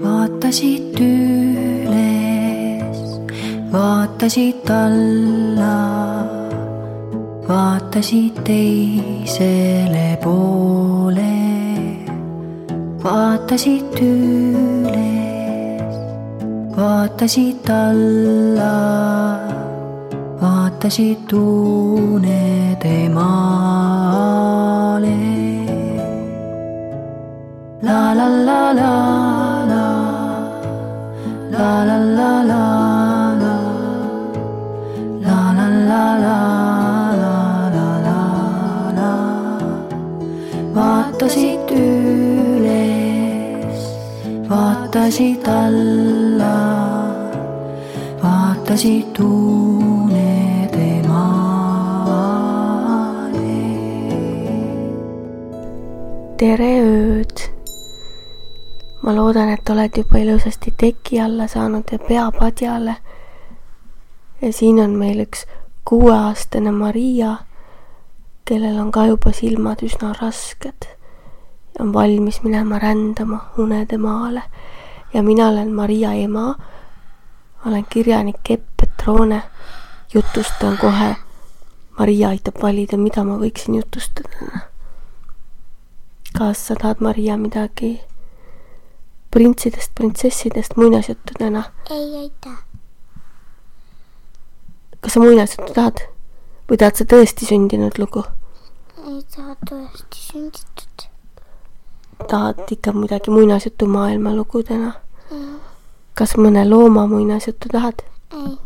Vaatasid üles, vaatasid alla, vaatasid teisele poole. Vaatasid üles, vaatasid alla, vaatasid unede maale. La la la la la, la la la la la, la la la la la la la la. Vaatasid üles, vaatasid alla, vaatasid unede maale. Tere ööd! Ma loodan, et oled juba ilusasti teki alla saanud ja pea padjale. Ja siin on meil üks 6-aastane Maria, kellel on ka juba silmad üsna rasked ja on valmis minema rändama unede maale. Ja mina olen Maria ema, olen kirjanik Epp Petrone, jutustan kohe. Maria aitab valida, mida ma võiksin jutustada. Kas sa tahad, Maria, midagi printsidest, printsessidest, muinasjuttudena? Ei aitäh. Kas sa muinasjuttu tahad? Või tahad sa tõesti sündinud lugu? Ei taha tõesti sünditud. Tahad ikka midagi muinasjutu maailma lugudena? Kas mõne looma muinasjuttu tahad? Ei.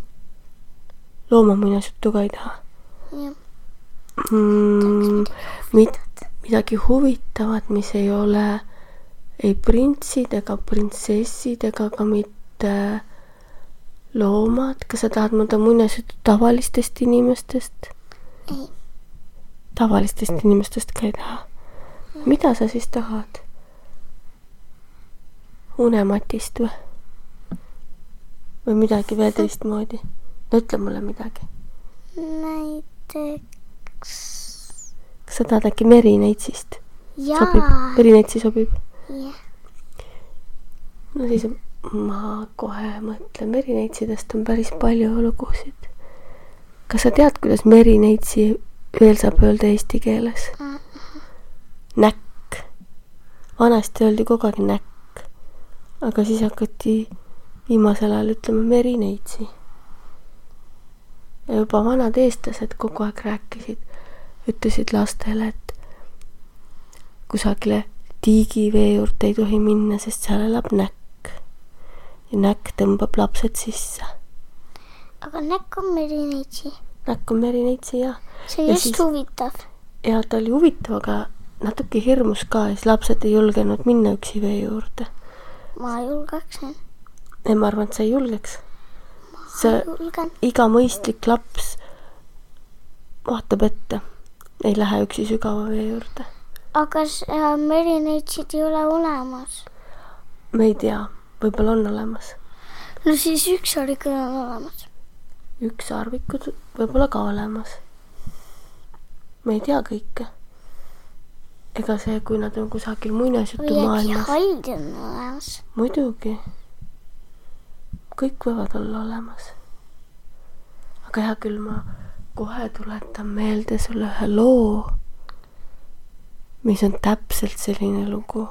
Looma muinasjuttu ka ei taha? Jah. Midagi huvitavat, mis ei ole ei printsid ega printsessid ega ka mitte loomad. Kas sa tahad mõnda muinasjuttu tavalistest inimestest? Ei. Tavalistest inimestest ka ei taha? Mida sa siis tahad? Unematist või? Või midagi veel teistmoodi? No ütle mulle midagi. Näiteks... Kas sa tahad äkki Merineitsist? Jaa. Sobib? Merineitsi sobib? Jah. No siis ma kohe mõtlen. Merineitsidest on päris palju lugusid. Kas sa tead, kuidas Merineitsi veel saab öelda eesti keeles? Näkk. Vanasti öeldi kogu aeg näkk. Aga siis hakati viimasel ajal ütlema Merineitsi. Ja juba vanad eestlased kogu aeg rääkisid, ütlesid lastele, et kusagile tiigivee juurde ei tohi minna, sest seal elab näkk. Ja näkk tõmbab lapsed sisse. Aga näkk on Merineitsi. Näkk on Merineitsi, jah. See on just huvitav. Ja ta oli huvitav, aga natuke hirmus ka. Ja siis lapsed ei julgenud minna üksi vee juurde. Ma julgeksin. Ei, ma arvan, et sa ei julgeks. Julgen. Iga mõistlik laps vaatab ette. Ei lähe üksi sügava vee juurde. Aga Merineitsid ei ole olemas. Me ei tea, võib-olla on olemas. No siis ükssarvikud on olemas. Ükssarvikud võib-olla ka olemas. Me ei tea kõike. Ega see, kui nad on kusagil muinasjutu maailmas. Või äkki haid on olemas. Muidugi. Kõik võivad olla olemas. Aga hea küll, ma kohe tuletan meelde sulle ühe loo, mis on täpselt selline lugu.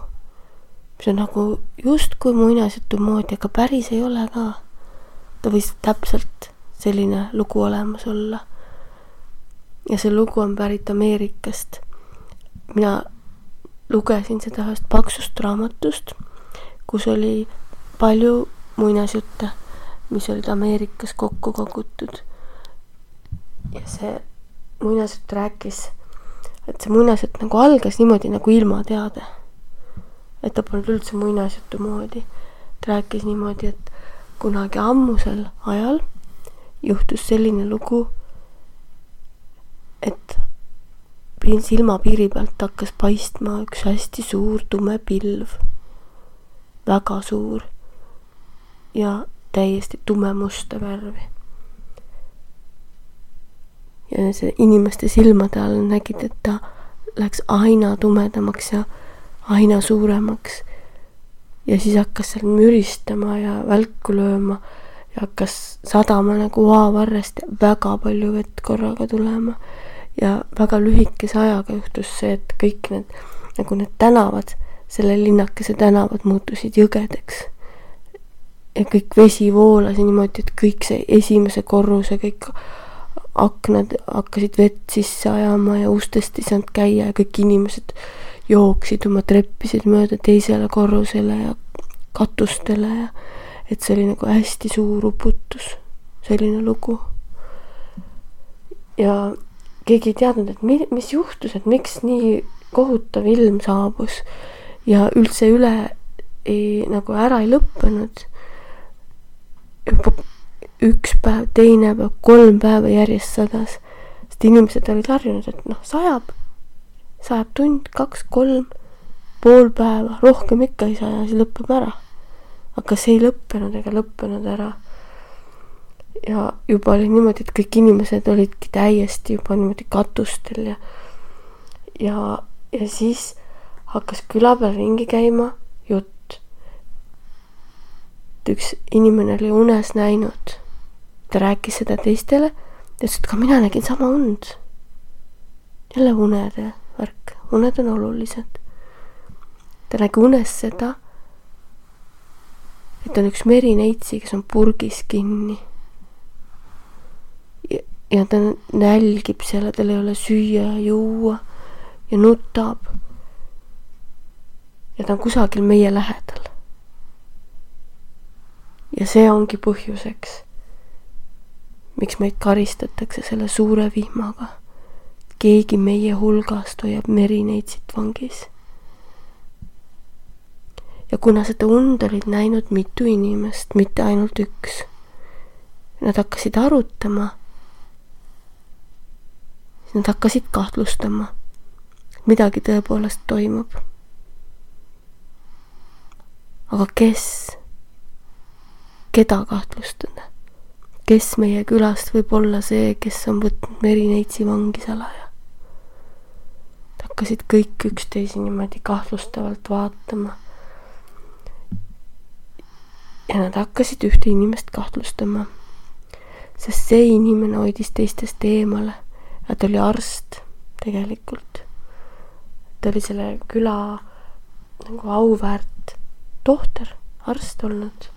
See on nagu just kui muinasjutu moodi, aga päris ei ole ka. Ta võis täpselt selline lugu olemas olla. Ja see lugu on pärit Ameerikast. Mina lugesin seda ühest paksust raamatust, kus oli palju muinasjutte, mis olid Ameerikas kokku kogutud. Ja see muinasjutt rääkis, et see muinasjutt nagu algas niimoodi nagu ilmateade. Et ta polnud üldse muinasjutu moodi. Ta rääkis niimoodi, et kunagi ammusel ajal juhtus selline lugu, et silmapiiri pealt hakkas paistma üks hästi suur tume pilv. Väga suur. Ja täiesti tumemusta värvi. Ja see inimeste silmade all nägid, et ta läks aina tumedamaks ja aina suuremaks. ja siis hakkas seal müristama ja välku lööma ja hakkas sadama nagu vaavarrest ja väga palju vett korraga tulema. Ja väga lühikese ajaga juhtus see, et kõik need tänavad, selle linnakese tänavad muutusid jõgedeks. Ja kõik vesi voolas ja niimoodi, et kõik see esimese korruse, kõik aknad hakkasid vett sisse ajama ja ustest ei saanud käia ja kõik inimesed jooksid oma treppisid mööda teisele korrusele ja katustele ja et see oli nagu hästi suur uputus, selline lugu. Ja keegi ei teadnud, et mis juhtus, et miks nii kohutav ilm saabus ja üldse nagu ära ei lõppenud. Juba üks päev, teine päev, 3 päeva järjest sadas, sest inimesed olid harjunud, et sajab tund, 2, 3, pool päeva, rohkem ikka ei saa ja siis lõpeb ära. Aga see ei lõppenud ära. Ja juba oli niimoodi, et kõik inimesed olidki täiesti juba niimoodi katustel ja siis hakkas küla peal ringi käima jutt. Üks inimene oli unes näinud. Ta rääkis seda teistele ja ütles, et ka mina nägin sama und. Jälle unede värk. Uned on olulised. Ta nägi unes seda, et on üks merineitsi, kes on purgis kinni. Ja ta nälgib seal, tal ei ole süüa ja juua ja nutab. Ja ta on kusagil meie lähedal. Ja see ongi põhjuseks, miks meid karistatakse selle suure vihmaga. Keegi meie hulgast hoiab merineitsit vangis. Ja kuna seda und olid näinud mitu inimest, mitte ainult üks, nad hakkasid arutama, siis nad hakkasid kahtlustama, midagi tõepoolest toimub. Aga keda kahtlustada? Kes meie külast võib olla see, kes on võtnud merineitsi vangi salaja? Hakkasid kõik üksteisi niimoodi kahtlustavalt vaatama. Ja nad hakkasid ühte inimest kahtlustama, sest see inimene hoidis teistest eemale ja ta oli arst tegelikult. Ta oli selle küla nagu auväärt tohter, arst olnud.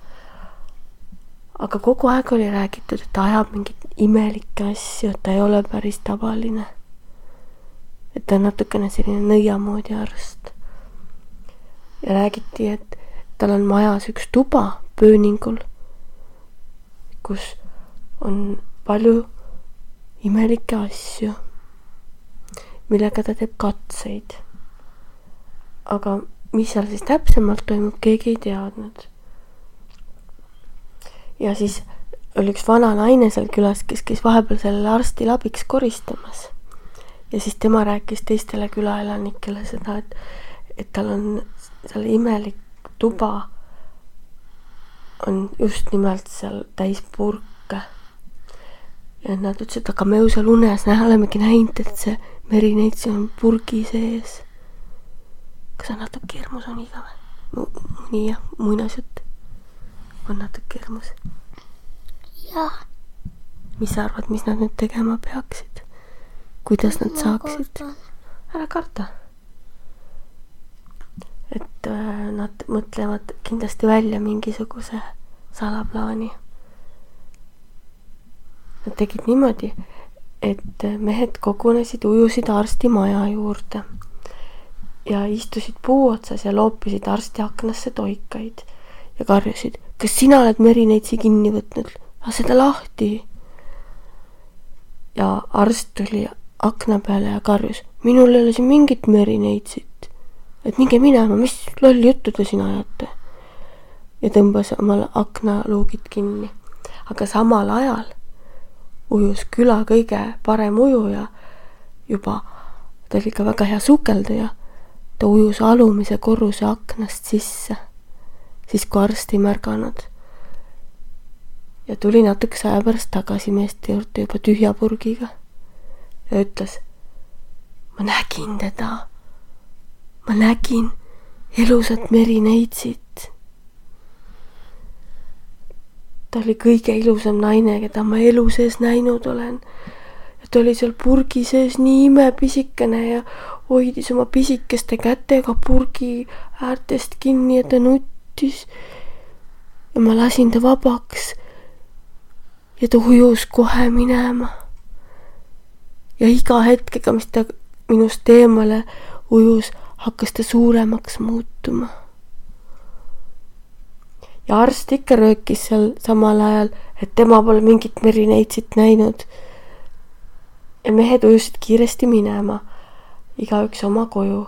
Aga kogu aeg oli räägitud, et ta ajab mingit imelikke asju, et ta ei ole päris tavaline. Et ta on natukene selline nõiamoodi arst. Ja räägiti, et tal on majas üks tuba pööningul, kus on palju imelikke asju, millega ta teeb katseid. Aga mis seal siis täpsemalt toimub, keegi ei teadnud. Ja siis oli üks vana naine seal külas, kes käis vahepeal sellele arstil abiks koristamas. Ja siis tema rääkis teistele külaelanikele seda, et tal on seal imelik tuba on just nimelt seal täis purke. Ja nad ütlesid, aga me ju seal unes olemegi näinud, et see merineitsi on purgi sees. Kas on natuke hirmus on iga või? Nii jah, muinasjutt on natuke hirmus. Jah. Mis sa arvad, mis nad nüüd tegema peaksid? Kuidas nad saaksid? Ära karta. Et nad mõtlevad kindlasti välja mingisuguse salaplaani. Nad tegid niimoodi, et mehed kogunesid, ujusid arsti maja juurde ja istusid puu otsas ja loopisid arsti aknasse toikaid ja karjusid, kas sina oled merineitsi kinni võtnud? Lase ta lahti. Ja arst tuli akna peale ja karjus, minul ei ole siin mingit merineitsit. Et minge minema, mis lolli juttu te siin ajate? Ja tõmbas omal aknaluugid kinni. Aga samal ajal ujus küla kõige parem ujuja juba, ta oli ka väga hea sukelduja, ta ujus alumise korruse aknast sisse, siis kui arst ei märganud. Ja tuli natukese aja pärast tagasi meeste juurde juba tühja purgiga ja ütles, ma nägin teda. Ma nägin elusat merineitsit ta oli kõige ilusam naine, keda ma elu sees näinud olen. Ja ta oli seal purgi sees nii imepisikene ja hoidis oma pisikeste kätega purgi äärtest kinni ja ta nuttis. Ja ma lasin ta vabaks ja ta ujus kohe minema. Ja iga hetkega, mis ta minust eemale ujus, hakkas ta suuremaks muutuma. Ja arst ikka röökis seal samal ajal, et tema pole mingit merineitsit näinud. Ja mehed ujusid kiiresti minema, igaüks oma koju.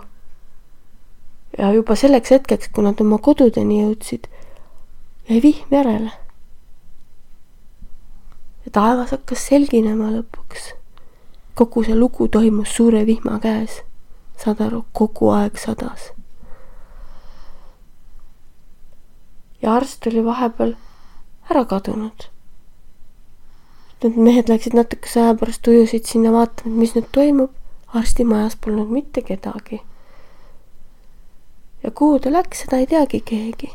Ja juba selleks hetkeks, kui nad oma kodudeni jõudsid, jäi vihm järele. Ja taevas hakkas selginema lõpuks. Kogu see lugu toimus suure vihma käes. Saad aru, kogu aeg sadas. Ja arst oli vahepeal ära kadunud. Need mehed läksid natukese aja pärast ujusid sinna vaatama, mis nüüd toimub. Arsti majas polnud mitte kedagi. Ja kuhu ta läks, seda ei teagi keegi.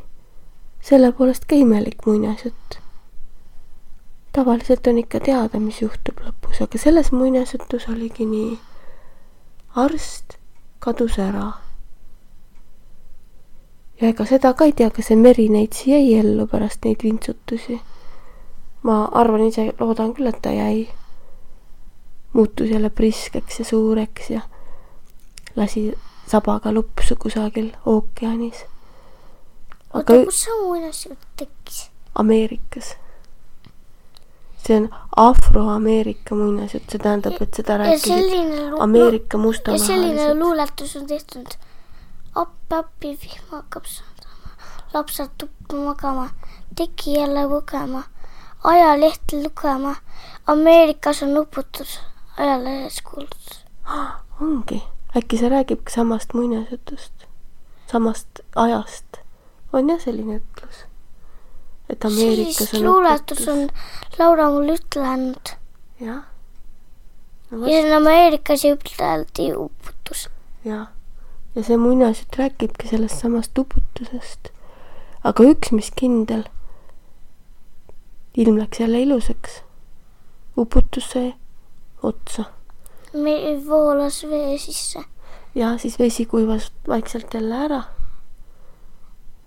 Selle poolest ka imelik muinasjutt. Tavaliselt on ikka teada, mis juhtub lõpus, aga selles muinasjutus oligi nii. Arst kadus ära. Ja ega seda ka ei tea, kas see merineitsi jäi ellu pärast neid vintsutusi. Ma arvan ise, loodan küll, et ta jäi. Muutus jälle priskeks ja suureks ja lasi sabaga lupsu kusagil ookeanis. Oota, kus see muinasjutt tekkis? Ameerikas. See on Afro-Ameerika muinasjutt, see tähendab, et seda rääkisid Ameerika mustamahalised. Ja selline luuletus on tehtud. Appi, vihma hakkab saadama. Lapsad tuppa magama. Teki jälle lugema. Ajalehti lugema. Ameerikas on uputus. Ajalehes kuulutus. Ongi. Äkki see räägib samast muinasjutust. Samast ajast. On jah selline ütlus. Et Ameerikas on luuletus on Laura mul ütlenud. Jah. No, ja see on Ameerikas üteldi uputus. Jah. Ja see muinasjutt räägibki sellest samast uputusest. Aga üks, mis kindel, ilm läks jälle ilusaks. Uputus sai otsa. Voolas vee sisse. Ja siis vesi kuivas vaikselt jälle ära.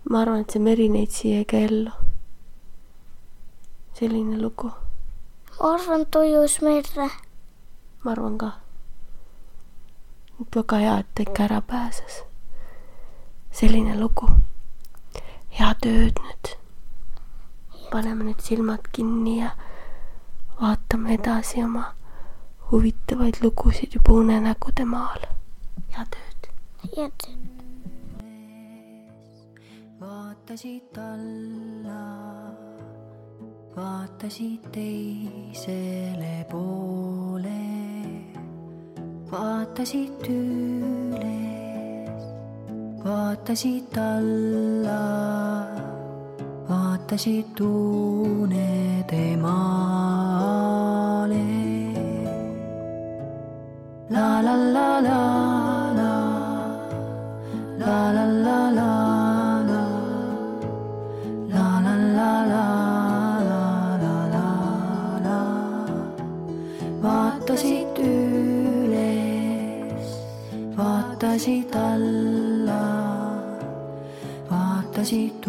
Ma arvan, et see merineitsi jäi ka ellu. Selline lugu. Ma arvan, tojus merre. Ma arvan ka. Väga hea, et ta ikka ära pääses. Selline lugu. Hea tööd nüüd. Paneme nüüd silmad kinni ja vaatame edasi oma huvitavaid lugusid juba unenägude maal. Hea tööd. Hea tööd. Vaatasid alla, vaatasid teisele poole. Vaatasid üles, vaatasid alla, vaatasid unede maale. La la la la la, la la la la la, la la la la la la la. Vaatasid vaatasid alla, vaatasid